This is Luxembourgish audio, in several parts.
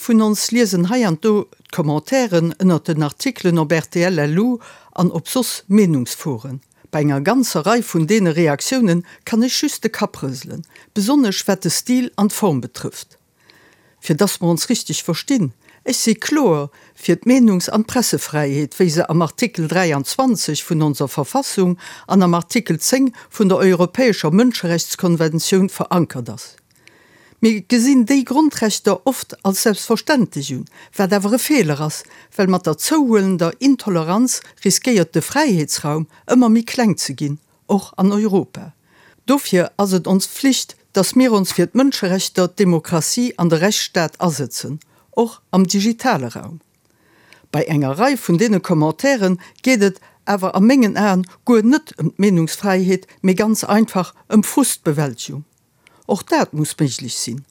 vun ons liesen hei an do d'Commentairen ënnert den Artikelen op rtl LU an op soss Meenungsforen. Bei enger ganzer Rei vun deene Reaktiounen kann ech just de Kapp rëselen, besonnesch wat de Stil an d'Form betrëfft. Fir dass mer ons richteg verstinn, ech si kloer fir d'Meenungs an d'Pressefräiheet, wéi se am Artikel 23 vun onser Verfassung an am Artikel 10 vun der Europäescher Mënscherechtskonventioun verankert ass. Mir gesinn déi Grondrechter oft als selbstverständlech un, wat awer e Feeler ass, well mat der zouhuelender Intoleranz riskéiert de Fräiheetsraum ëmmer méi kleng ze ginn, och an Europa. Dofir ass et ons Pflicht, dass mir ons fir d'Mënscherechter, d'Demokratie an de Rechtsstaat asëtzen, och am digitale Raum. Bei enger Rei vun deene Commentairen geet et awer a mengen Aen guer net ëm d'Meenungsfräiheet, mee ganz einfach ëm Frustbewältegung. Och dat muss méiglech sinn.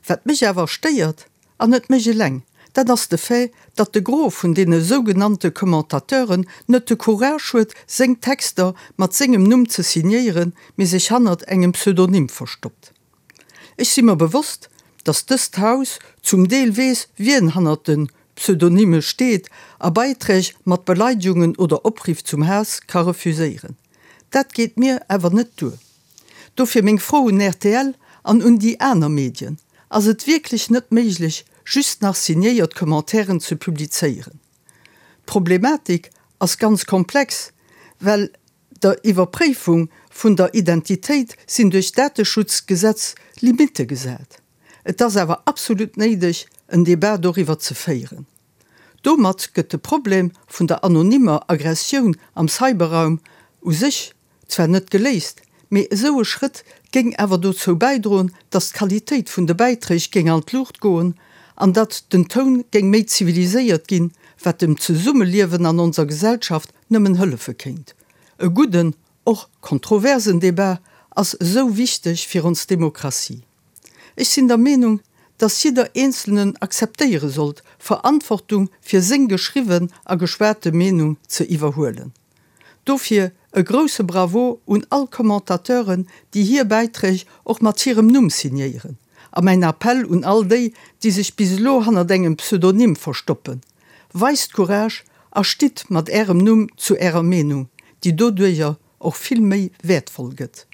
Wat mech awer stéiert, an net mech eleng, dat ass de Fait, datt de Gros vun deene sougenannte Commentateuren net de Courage huet, seng Texter mat sengem Numm ze signéieren, mee sech hannert engem Pseudonym verstoppt. Ech si mer bewosst, datt dëst Haus zum Deel weess, wien hannert de Pseudonyme steet a Beiträg mat Beleidegungen oder Opriff zum Haass ka refuséieren. Dat geet mir awer net duer. Dofir meng Fro un rtl an un déi aner Medien, Ass et wierklech net méiglech, just nach signéiert Commentairen ze publizéieren? D'Problematik ass ganz komplex, well der Iwwerpréifung vun der Identitéit sinn duerch d'Dateschutzgesetz Limitte gesat. Et ass awer absolut néideg, en Debat doriwwer ze féieren. Domat gëtt de Problem vun der anonymer Aggressioun am Cyberraum u sech zwar net geléist, mee esou e Schrëtt géing awer dozou bäidroen, datt d'Qualitéit vun de Bäiträg géing an d'Luucht goen an datt den Toun géing méi ziviliséiert ginn, wat dem Zesummeliewen an onser Gesellschaft nëmmen hëllefe kéint. E gudden, och kontroversen Debat ass esou wichteg fir ons Demokratie. Ech sinn der Meenung, datt jidder Eenzelnen akzeptéiere sollt, Verantwortung fir seng geschriwwen a geschwate Meenung ze iwwerhuelen. Dofir e grousse Bravo un all Commentateuren, déi hir Bäiträg och mat hirem Numm signéieren. A mäin Appell un all déi, déi sech bis elo hannert engem Pseudonym verstoppen, Weist Courage a stitt mat Ärem Numm zu Ärer Meenung, déi doduerjer och vill méi wäertvoll gëtt.